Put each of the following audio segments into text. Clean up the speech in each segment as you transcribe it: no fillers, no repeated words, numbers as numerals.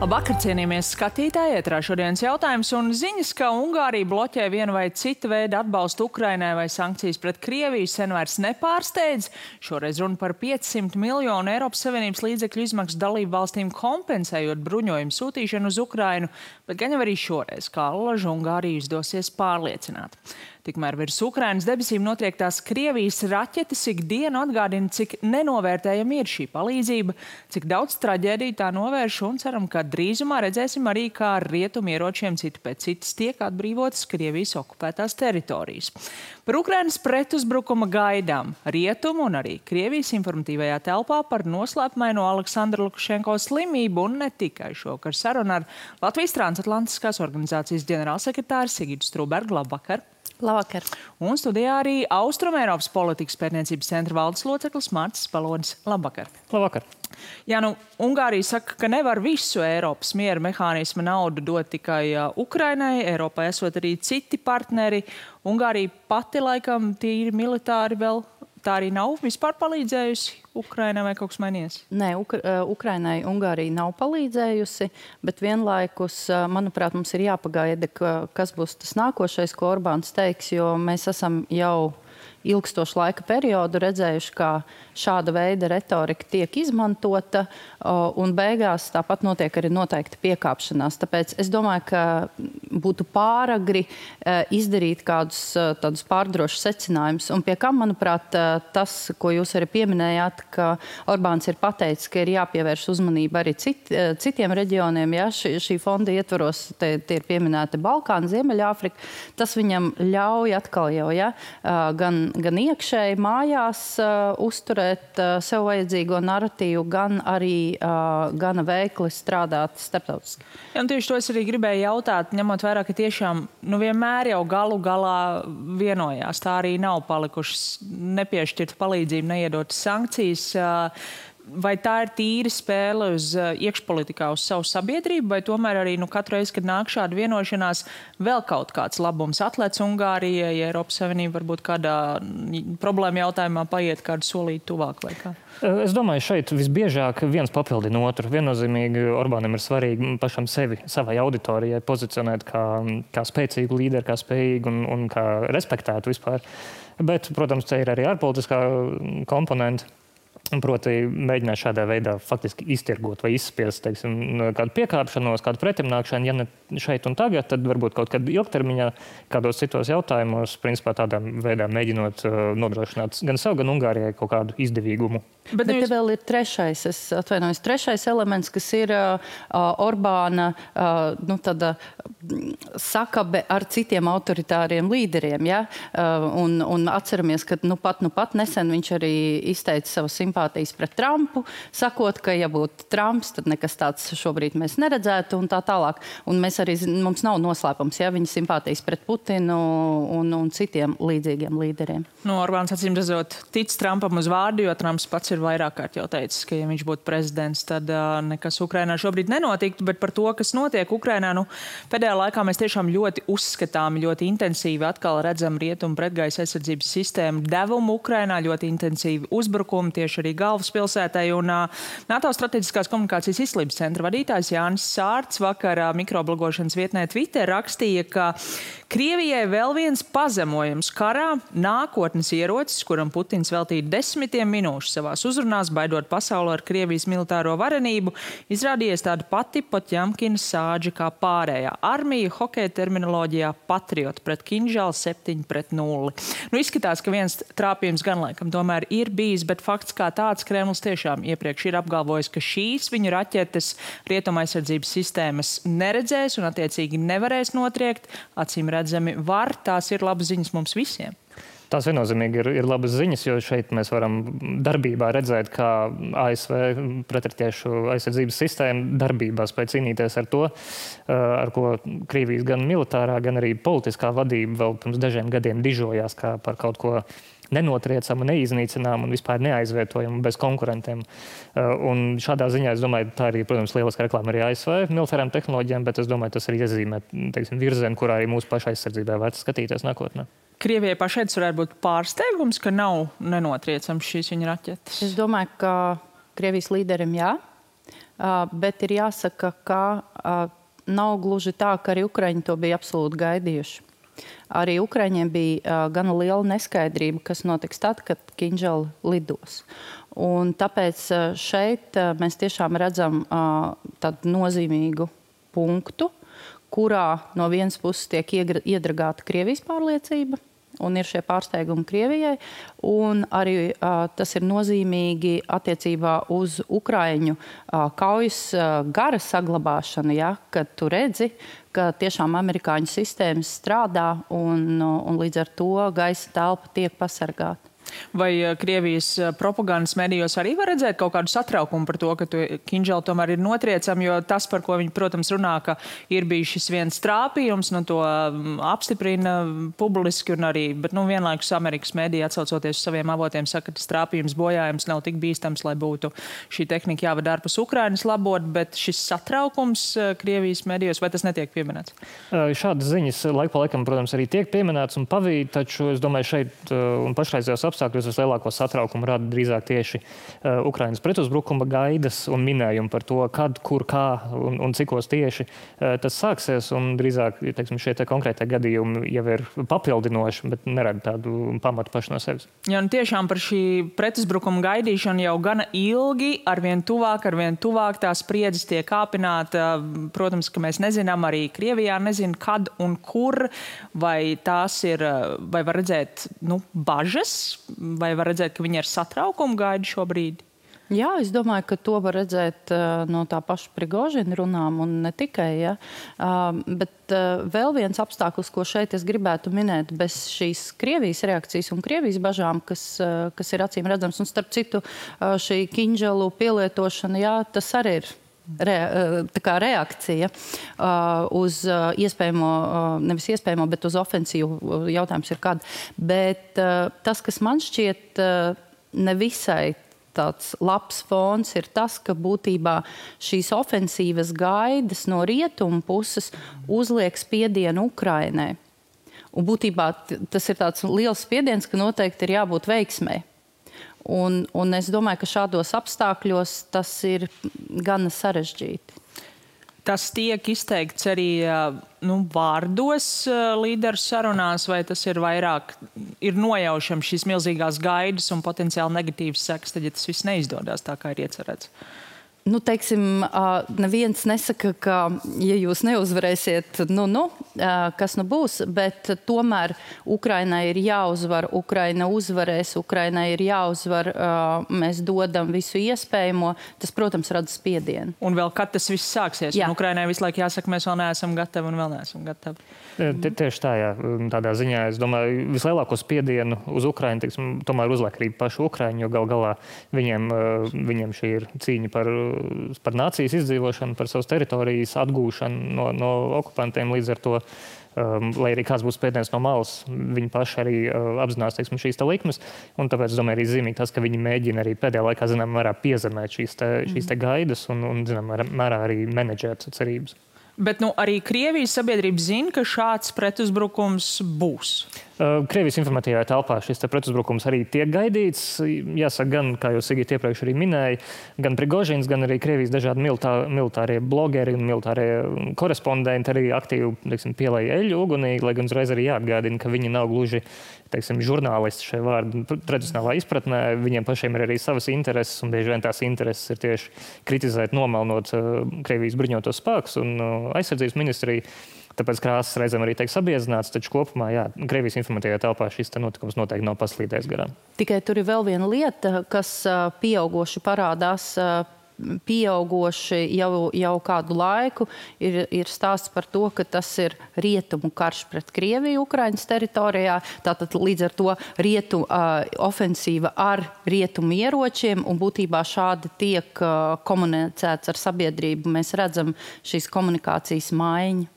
Labvakar, cienījamies skatītāji, ētrā šodienas jautājums un ziņas, ka Ungārija bloķē vienu vai citu veidu atbalstu Ukrainai vai sankcijas pret Krieviju sen vairs nepārsteidz. Šoreiz runa par 500 miljonu Eiropas Savienības līdzekļu izmaksu dalību valstīm kompensējot bruņojumu sūtīšanu uz Ukrainu, bet gan jau arī šoreiz, kā allažu Ungāriju izdosies pārliecināt. Tikmēr virs Ukrainas debesīm notriektās Krievijas raķetes ikdienu atgādina, cik nenovērtējama ir šī palīdzība, cik daudz traģēdiju tā novērš un ceram, ka drīzumā redzēsim arī, kā ar rietumu ieročiem citi pēc citas tiek atbrīvotas Krievijas okupētās teritorijas. Par Ukrainas pretuzbrukuma gaidām rietumu un arī Krievijas informatīvajā telpā par noslēpumaino Aleksandra Lukašenko slimību un ne tikai šovakar saruna ar Latvijas transatlantiskās organizācijas ģenerālsekretāru Sigitu Strūbergu. Labvakar! Labvakar. Un studijā arī Austrumeiropas politikas pētniecības centra valdes loceklis Mārcis Palonis. Labvakar. Labvakar. Jā, Ungārija saka, ka nevar visu Eiropas miera mehānisma naudu dot tikai Ukrainai. Eiropā esot arī citi partneri. Ungārija pati laikam tīri militāri vēl tā arī nav vispār palīdzējusi Ukrainai vai kaut kas mainījies? Nē, Ukrainai Ungārija nav palīdzējusi, bet vienlaikus, manuprāt, mums ir jāpagaida, kas būs tas nākošais, ko Orbāns teiks, jo mēs esam jau ilgstošu laika periodu redzējuši, kā šāda veida retorika tiek izmantota, un beigās tāpat notiek arī noteikti piekāpšanās. Tāpēc es domāju, ka būtu pāragri izdarīt kādus tādus pārdrošus secinājumus. Un pie kam, manuprāt, tas, ko jūs arī pieminējāt, ka Orbāns ir pateicis, ka ir jāpievērš uzmanība arī citiem reģioniem. Ja? Šī fonda ietvaros tie ir pieminēti Balkāni, Ziemeļāfrika. Tas viņam ļauj atkal jau, ja? gan iekšēji mājās uzturēt sev vajadzīgo naratīvu, gan arī gana veikli strādāt starptautiski. Ja, tieši to es arī gribēju jautāt, ņemot vērā, ka tiešām vienmēr jau galu galā vienojās. Tā arī nav palikušas nepiešķirta palīdzība, neiedotas sankcijas. Vai tā ir tīra spēle uz iekšpolitikā, uz savu sabiedrību, vai tomēr arī katru reizi, kad nāk šāda vienošanās, vēl kaut kāds labums atlec Ungārijai, ja Eiropas Savienība varbūt kādā problēma jautājumā paiet kādu solīti tuvāk vai kā? Es domāju, šeit visbiežāk viens papildina otru. Viennozīmīgi Orbānam ir svarīgi pašam sevi, savai auditorijai pozicionēt kā spēcīgu līderi, kā spējīgu un kā respektētu vispār. Bet, protams, te ir arī ārpolitiskā komponenta. Proti mēģināt šādā veidā faktiski iztirgot vai izspiest, teiksim, kādu piekāpšanos, kādu pretimnākšanu, ja ne šeit un tagad, tad varbūt kaut kad ilgtermiņā, kādos citos jautājumos, principā tādā veidā mēģinot nodrošināt gan sev, gan Ungārijai kaut kādu izdevīgumu. Bet te vēl ir trešais elements, kas ir Orbāna sakabe ar citiem autoritāriem līderiem. Ja? Un atceramies, ka pat nesen viņš arī izteica savas simpātijas pret Trumpu, sakot, ka ja būtu Trumps, tad nekas tāds šobrīd mēs neredzētu un tā tālāk. Un mums nav noslēpums, ja, viņa simpātijas pret Putinu un citiem līdzīgiem līderiem. Orbāns acīm redzot tic Trumpam uz vārdu, jo Trumps pats ir vairāk kārt jau teicis, ka ja viņš būtu prezidents, tad nekas Ukrainā šobrīd nenotiktu, bet par to, kas notiek Ukrainā, pēdējā laikā mēs tiešām ļoti uzskatāmi, ļoti intensīvi atkal redzam rietumu pretgaisa aizsardzības sistēmu devumu Ukrainā, ļoti intensīvi uzbrukumi tieši arī galvaspilsētai. Un NATO strateģiskās komunikācijas izglītības centra vadītājs Jānis Sārts vakar mikroblogošanas vietnē Twitter rakstīja, ka Krievijai vēl viens pazemojums karā, nākotnes ierocis, kuram Putins veltīja 10 minūšu savās uzrunās, baidot pasauli ar Krievijas militāro varenību, izrādījies tāda pati Potjamkina sāģa kā pārējā armija, hokeja terminoloģijā patrioti pret Kinžālu 7-0. Izskatās, ka viens trāpījums gan laikam tomēr ir bijis, bet fakts kā tāds Kremlis tiešām iepriekš ir apgalvojis, ka šīs viņu raķetes rietuma aizsardzības sistēmas neredzēs un attiecīgi nevarēs notriekt. Acīm redzami var, tās ir labas ziņas mums visiem. Tās viennozīmīgi ir labas ziņas, jo šeit mēs varam darbībā redzēt, kā ASV pretratiešu aizsardzības sistēma darbībā spēj cīnīties ar to, ar ko Krievijas gan militārā, gan arī politiskā vadība vēl pirms dažiem gadiem dižojās kā par kaut ko nenotriecamu, neiznīcināmu un vispār neaizvietojamu bez konkurentiem. Un šādā ziņā, es domāju, tā arī, protams, lieliska reklāma arī ASV militārām tehnoloģijām, bet es domāju, tas arī iezīmē, virzienu, kurā arī mūsu paša aizsardzībā vērts skatīties nākotnē. Krievijai pašai tas varētu būt pārsteigums, ka nav nenotriecams šīs viņa raķetes? Es domāju, ka Krievijas līderim jā. Bet ir jāsaka, ka nav gluži tā, ka arī Ukraiņi to bija absolūti gaidījuši. Arī Ukraiņiem bija gana liela neskaidrība, kas notiks tad, kad Kinžali lidos. Un tāpēc šeit mēs tiešām redzam tādu nozīmīgu punktu, kurā no vienas puses tiek iedragāta Krievijas pārliecība, un ir šie pārsteigumi Krievijai, un arī tas ir nozīmīgi attiecībā uz Ukraiņu kaujas gara saglabāšanu, ja, kad tu redzi, ka tiešām amerikāņu sistēmas strādā un līdz ar to gaisa telpa tiek pasargāta. Vai Krievijas propagandas medijos arī var redzēt kaut kādu satraukumu par to, ka Kinžali tomēr ir notriecami, jo tas, par ko viņi, protams, runā, ka ir bijis šis viens trāpījums, to apstiprina publiski un arī, bet vienlaikus Amerikas mediji atsaucoties uz saviem avotiem saka, ka tas trāpījums bojājums nav tik bīstams, lai būtu šī tehnika jāvada ārpus Ukrainas labot, bet šis satraukums Krievijas medijos, vai tas netiek pieminēts? Šādas ziņas laik pa laikam, protams, arī tiek pieminēts un pavīd, taču es domāju šeit un pašreizējos apstākļos vislielāko satraukumu rada drīzāk tieši Ukrainas pretuzbrukuma gaidas un minējumi par to, kad, kur, kā un cikos tieši tas sāksies. Un drīzāk, teiksim, šie konkrētie gadījumi jau ir papildinoši, bet nerada tādu pamatu paši no sevis. Jā, tiešām par šī pretuzbrukuma gaidīšanu jau gana ilgi, arvien tuvāk tās spriedzes tiek kāpināta. Protams, ka mēs nezinām, arī Krievijā nezina, kad un kur, vai tās ir, vai var redzēt, bažas, vai var redzēt, ka viņi ar satraukumu gaida šobrīd? Jā, es domāju, ka to var redzēt no tā paša Prigožina runām un ne tikai. Ja. Bet vēl viens apstākļus, ko šeit es gribētu minēt, bez šīs Krievijas reakcijas un Krievijas bažām, kas ir acīm redzams, un starp citu šī Kinžalu pielietošana, jā, tas arī ir reakcija uz iespējamo, nevis iespējamo, bet uz ofensīvu. Jautājums ir kad. Bet tas, kas man šķiet nevisai tāds labs fons, ir tas, ka būtībā šīs ofensīvas gaidas no rietumu puses uzliek spiedienu Ukrainai. Un būtībā tas ir tāds liels spiediens, ka noteikti ir jābūt veiksmei. Un es domāju, ka šādos apstākļos tas ir gana sarežģīti. Tas tiek izteikts arī vārdos līderu sarunās, vai tas ir vairāk nojaušams šīs milzīgās gaidas un potenciāli negatīvas sekas, tad, ja tas viss neizdodas tā, kā ir iecerēts? Teiksim, neviens nesaka, ka, ja jūs neuzvarēsiet, kas būs, bet tomēr Ukrainai ir jāuzvar, Ukraina uzvarēs, Ukrainai ir jāuzvar, mēs dodam visu iespējamo, tas, protams, rada spiedienu. Un vēl kad tas viss sāksies? Jā. Un Ukrainai visu laiku jāsaka, mēs vēl neesam gatavi un vēl neesam gatavi. Tieši tā, jā. Tādā ziņā, es domāju, vislielāko spiedienu uz Ukrainu, teiksim, tomēr uzliek arī paši Ukraiņi, jo galā viņiem šī ir cīņa par nācijas izdzīvošanu, par savas teritorijas atgūšanu no okupantiem. Līdz ar to, lai arī kāds būs spiediens no malas, viņi paši arī apzinās, teiksim, šīs likmes. Un tāpēc, es domāju, arī zīmīgi tas, ka viņi mēģina arī pēdējā laikā, zinām, mērā piezemēt šīs gaidas un zinām, mērā arī menedžēt cerības. Bet arī Krievijas sabiedrība zina, ka šāds pretuzbrukums būs. Krievijas informatīvajā telpā šis pretuzbrukums arī tiek gaidīts. Jāsaka, gan, kā jau Sigita iepriekš arī minēja, gan Prigožins, gan arī Krievijas dažādi militārie blogeri un militārie korespondenti arī aktīvi, teiksim, pielēja eļļu ugunī, lai gan uzreiz arī jāatgādina, ka viņi nav gluži, teiksim, žurnālisti šajā vārdu tradicionālā izpratnē. Viņiem pašiem ir arī savas intereses, un bieži vien tās intereses ir tieši kritizēt, nomelnot Krievijas bruņotos spēkus un aizsardzības ministriju. Tāpēc krāsas reizēm arī tiek sabiezināts, taču kopumā, jā, Krievijas informatīvajā telpā šis notikums noteikti nav paslīdējis garām. Tikai tur ir vēl viena lieta, kas pieaugoši parādās. Pieaugoši jau kādu laiku ir stāsts par to, ka tas ir rietumu karš pret Krieviju Ukrainas teritorijā. Tātad līdz ar to ofensīva ar rietumu ieročiem, un būtībā šādi tiek komunicēts ar sabiedrību. Mēs redzam šīs komunikācijas maiņu.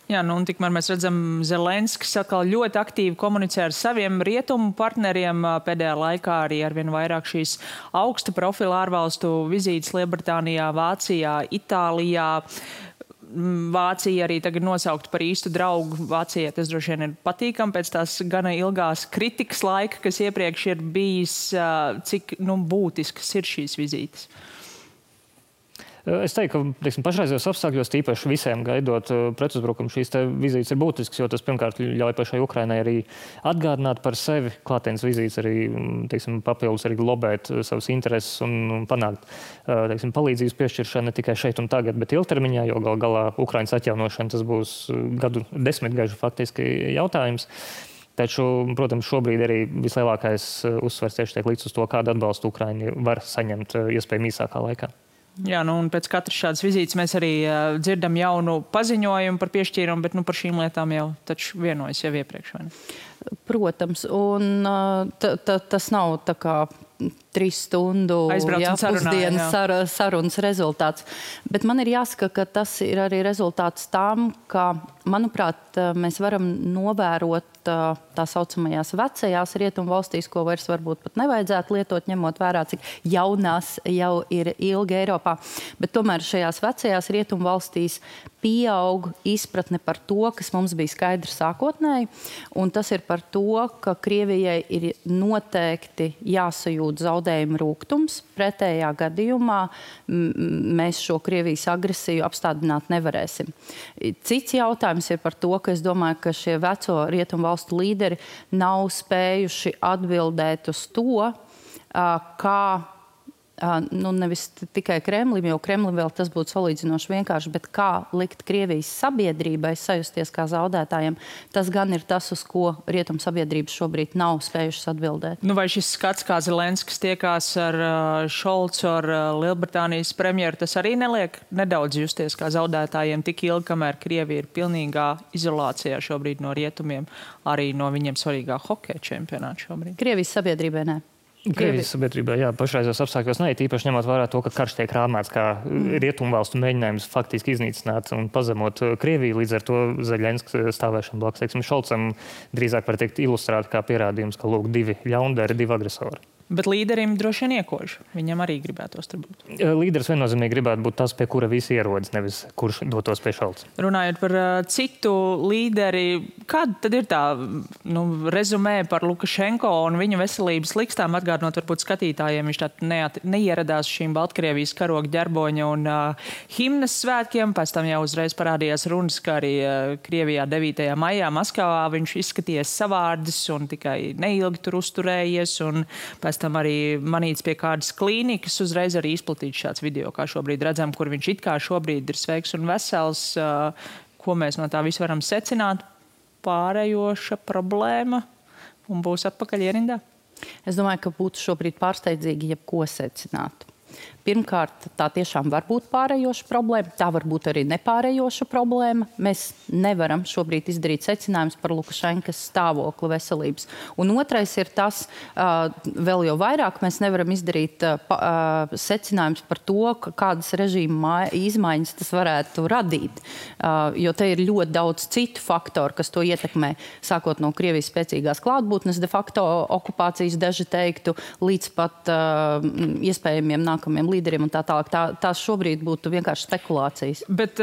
Jā, un tikmēr mēs redzam, Zelenskis atkal ļoti aktīvi komunicē ar saviem rietumu partneriem. Pēdējā laikā arī arvien vairāk šīs augsta profila ārvalstu vizītes Lielbritānijā, Vācijā, Itālijā. Vācija arī tagad nosaukt par īstu draugu. Vācijai tas droši vien ir patīkami pēc tās gana ilgās kritikas laika, kas iepriekš ir bijis, cik būtiskas ir šīs vizītes. Es teiktu, ka pašreizējos apstākļos, tīpaši visiem gaidot pretuzbrukumu, šīs vizītes ir būtiskas, jo tas pirmkārt ļauj pašai Ukrainai arī atgādināt par sevi. Klātienes vizītes arī papildus arī globēt savas intereses un panākt palīdzības piešķiršanu ne tikai šeit un tagad, bet ilgtermiņā, jo gal galā Ukrainas atjaunošana tas būs gadu desmitgažu faktiski jautājums. Taču, protams, šobrīd arī vislielākais uzsvers tieši tiek līdz uz to, kādu atbalstu Ukraiņi var saņemt iespējami īsākā laikā. Jā, un pēc katras šādas vizītes mēs arī dzirdam jaunu paziņojumu par piešķīrumu, bet par šīm lietām jau taču vienojas jau iepriekš. Vai ne? Protams, un tas nav tā kā 3 stundu pusdienas sarunas rezultāts. Bet man ir jāsaka, ka tas ir arī rezultāts tam, ka, manuprāt, mēs varam novērot tā saucamajās vecajās rietumu valstīs, ko vairs varbūt pat nevajadzētu lietot, ņemot vērā, cik jaunās jau ir ilgi Eiropā. Bet tomēr šajās vecajās rietumu valstīs pieaug izpratne par to, kas mums bija skaidrs sākotnēji, un tas ir par to, ka Krievijai ir noteikti jāsajūt zaudējumu rūgtums. Pretējā gadījumā mēs šo Krievijas agresiju apstādināt nevarēsim. Cits jautājums ir par to, ka es domāju, ka šie veco rietumu valstu līderi nav spējuši atbildēt uz to, kā nevis tikai Kremlim, jo Kremlim vēl tas būtu salīdzinoši vienkārši, bet kā likt Krievijas sabiedrībai sajusties kā zaudētājiem, tas gan ir tas, uz ko rietumu sabiedrības šobrīd nav spējušas atbildēt. Vai šis skats, kā Zelenskis tiekās ar Šolcu, ar Lielbritānijas premjeru, tas arī neliek nedaudz justies kā zaudētājiem tik ilgi, kamēr Krievija ir pilnīgā izolācijā šobrīd no rietumiem, arī no viņiem svarīgā hokeja čempionāta šobrīd? Krievijas sabiedrībai nē. Krievijas sabiedrībā, jā, pašreizos apstākļos ne, tīpaši ņemot vērā to, ka karš tiek rāmēts kā rietumvalstu mēģinājums faktiski iznīcināt un pazemot Krieviju. Līdz ar to Zelenskis stāvēšana blakus, Šolcam drīzāk var teikt ilustrēta kā pierādījums, ka lūk 2 ļaundari, 2 agresori. Bet līderim droši vien iekož. Viņam arī gribētos tur būt. Līderis viennozīmīgi gribētu būt tas, pie kura visi ierodas, nevis kurš dotos pie Šolca. Runājot par citu līderi, kāda tad ir tā rezumē par Lukašenko un viņa veselības likstām? Atgādinot varbūt skatītājiem, viņš tā neieradās šīm Baltkrievijas karoga ģerboņa un himnas svētkiem. Pēc tam jau uzreiz parādījās runas, ka arī Krievijā 9. maijā Maskavā viņš izskaties savārdis un tikai neilgi tur uzturējies. Un pēc tam arī manīts pie kādas klīnikas, uzreiz arī izplatīts šāds video, kā šobrīd redzam, kur viņš it kā šobrīd ir sveiks un vesels. Ko mēs no tā visu varam secināt? Pārējoša problēma un būs atpakaļ ierindā? Es domāju, ka būtu šobrīd pārsteidzīgi jebko secināt. Pirmkārt, tā tiešām var būt pārējoša problēma, tā var būt arī nepārējoša problēma. Mēs nevaram šobrīd izdarīt secinājumus par Lukašenkas stāvokli veselības. Un otrais ir tas, vēl jau vairāk mēs nevaram izdarīt secinājumus par to, kādas režīma izmaiņas tas varētu radīt. Jo te ir ļoti daudz citu faktoru, kas to ietekmē, sākot no Krievijas spēcīgās klātbūtnes, de facto okupācijas daži teiktu, līdz pat iespējamiem nākamiem līderiem un tā tālāk. Tās šobrīd būtu vienkārši spekulācijas. Bet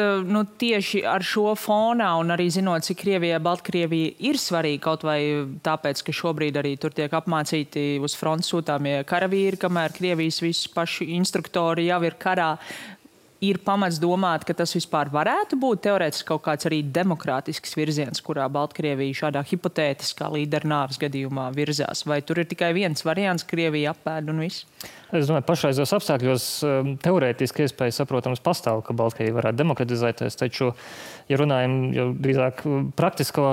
tieši ar šo fonā un arī zinot, cik Krievijai Baltkrievija ir svarīga, kaut vai tāpēc, ka šobrīd arī tur tiek apmācīti uz frontes sūtāmie karavīri, kamēr Krievijas visi paši instruktori jau ir karā, ir pamats domāt, ka tas vispār varētu būt teorētiski kaut kāds arī demokrātisks virziens, kurā Baltkrievija šādā hipotētiskā līdera nāves gadījumā virzās? Vai tur ir tikai viens variants, Krievija apēd un viss? Es domāju, pašreizos apstākļos teorētiski iespēja, saprotams, pastāv, ka Baltkrievija varētu demokratizēties, taču, ja runājam jau drīzāk praktisko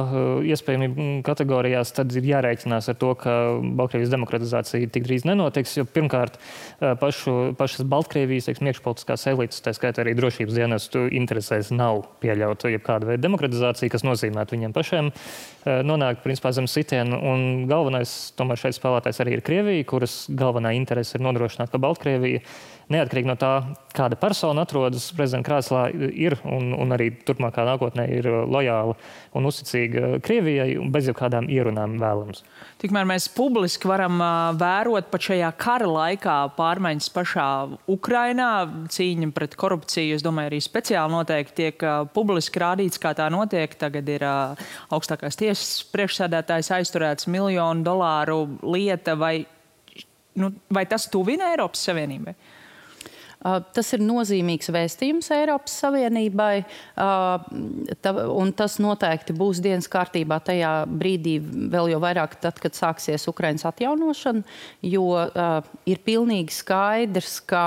iespējamību kategorijās, tad ir jārēķinās ar to, ka Baltkrievijas demokratizācija tik drīz nenotiks, jo pirmkārt pašas Baltkrievijas, iekšpolitiskās elites, tā skaitā arī drošības dienestu interesēs nav pieļaut jebkādu veidu demokratizāciju, kas nozīmētu viņiem pašiem nonākt, principā, zem sitienu. Un galvenais, tomēr šeit spēlētājs arī ir Krievija, kuras galvenā interese ir nodrošināt, ka Baltkrievija, neatkarīgi no tā, kāda persona atrodas prezidenta krēslā, ir un arī turpmākā nākotnē ir lojāla un uzticīga Krievijai un bez jebkādām ierunām vēlams. Tikmēr mēs publiski varam vērot pat šajā kara laikā pārmaiņas pašā Ukrainā, cīņa pret korupciju, es domāju, arī speciāli noteikti tiek publiski rādīts, kā tā notiek. Tagad ir augstākās tiesas priekšsēdētājs aizturēts $1 miljonu lieta, vai tas tuvina Eiropas Savienībai? Tas ir nozīmīgs vēstījums Eiropas Savienībai, un tas noteikti būs dienas kārtībā tajā brīdī vēl jau vairāk tad, kad sāksies Ukrainas atjaunošana, jo ir pilnīgi skaidrs, ka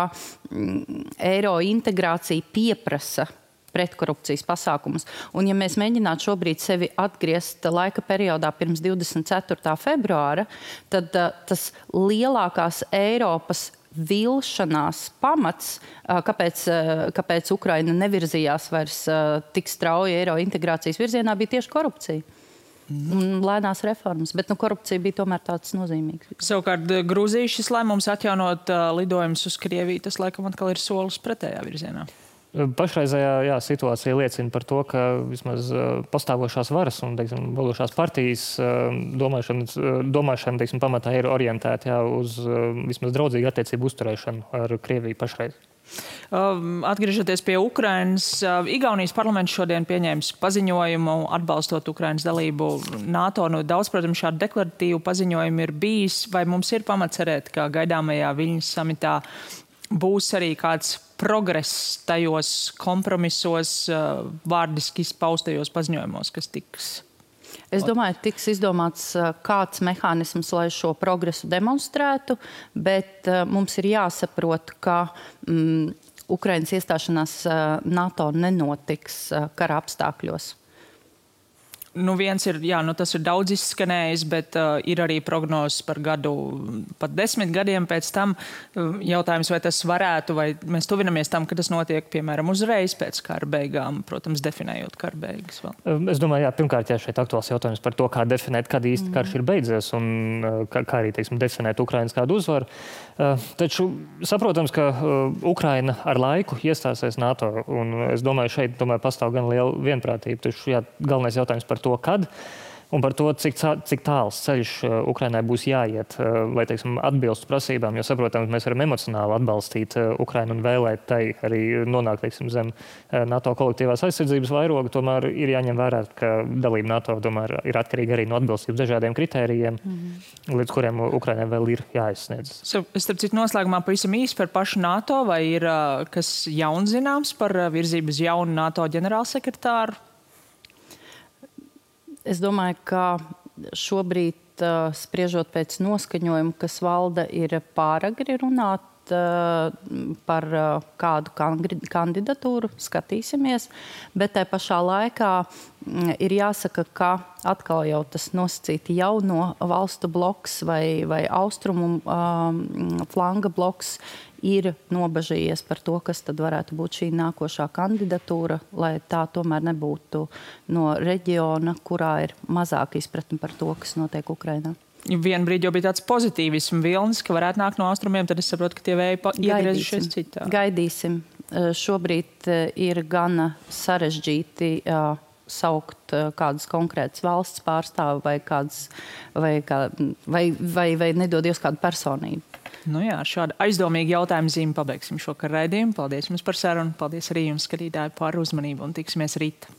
eiro integrācija pieprasa pretkorupcijas pasākumus. Un ja mēs mēģinātu šobrīd sevi atgriezt laika periodā pirms 24. februāra, tad tas lielākās Eiropas vilšanās pamats, kāpēc Ukraina nevirzījās vairs tik strauji eiro integrācijas virzienā, bija tieši korupcija. Un lēnās reformas, bet korupcija bija tomēr tāds nozīmīgs. Savukārt Grūzijas šis lēmums atjaunot lidojumus uz Krieviju, tas laikam atkal ir solis pretējā virzienā. Pašreizējā situācija liecina par to, ka vismaz pastāvošās varas un, teiksim, vadošās partijas domāšana teiksim, pamatā ir orientēta uz vismaz draudzīgu attiecību uzturēšanu ar Krieviju pašreiz. Atgriežoties pie Ukrainas, Igaunijas parlaments šodien pieņēmis paziņojumu atbalstot Ukrainas dalību NATO. Daudz, protams, šādu deklaratīvu paziņojumu ir bijis. Vai mums ir pamats cerēt, ka gaidāmajā Viļņas samitā būs arī kāds progress tajos kompromisos, vārdiski izpaustajos paziņojumos, kas tiks? Es domāju, tiks izdomāts kāds mehānisms, lai šo progresu demonstrētu, bet mums ir jāsaprot, ka Ukrainas iestāšanās NATO nenotiks kara apstākļos. Viens ir, tas ir daudz izskanējis, bet ir arī prognozes par gadu, pat 10 gadiem pēc tam. Jautājums, vai tas varētu, vai mēs tuvinamies tam, ka tas notiek, piemēram, uzreiz pēc kara beigām, protams, definējot kara beigas vēl. Es domāju, pirmkārt, šeit aktuāls jautājums par to, kā definēt, kad īsti karš ir beidzies un kā arī, teiksim, definēt Ukrainas kādu uzvaru. Taču saprotams, ka Ukraina ar laiku iestāsies NATO, un es domāju, šeit pastāv gan liela vienprātība. Taču galvenais jautājums par to, kad un par to, cik tāls ceļš Ukrainai būs jāiet, lai, teiksim, atbilstu prasībām, jo, saprotams, mēs varam emocionāli atbalstīt Ukrainu un vēlēt tai arī nonākt, teiksim, zem NATO kolektīvās aizsardzības vairoga, tomēr ir jāņem vērā, ka dalība NATO tomēr ir atkarīga arī no atbilstības dažādiem kritērijiem, līdz kuriem Ukrainai vēl ir jāizsniedz. Starp citu, noslēgumā pavisam īsi par pašu NATO, vai ir kas jauns zināms par virzību uz jaunu NATO ģenerālsekretāru? Es domāju, ka šobrīd, spriežot pēc noskaņojuma, kas valda, ir pāragri runāt par kādu kandidatūru, skatīsimies, bet tai pašā laikā ir jāsaka, ka atkal jau tas nosacīti jauno valstu bloks vai austrumu flanga bloks ir nobažījies par to, kas tad varētu būt šī nākošā kandidatūra, lai tā tomēr nebūtu no reģiona, kurā ir mazāk izpratne par to, kas notiek Ukrainā. Vienu brīdi jau bija tāds pozitīvismu vilnis, ka varētu nākt no austrumiem, tad es saprotu, ka tie vēji iegriezušies citā. Gaidīsim. Šobrīd ir gana sarežģīti saukt kādas konkrētas valsts pārstāvi vai nedodies kādu personību. Šādu aizdomīgu jautājumu zīmi pabeigsim šo raidījumu. Paldies jums par sarunu, paldies arī jums, skatītāji, par uzmanību un tiksimies rīt.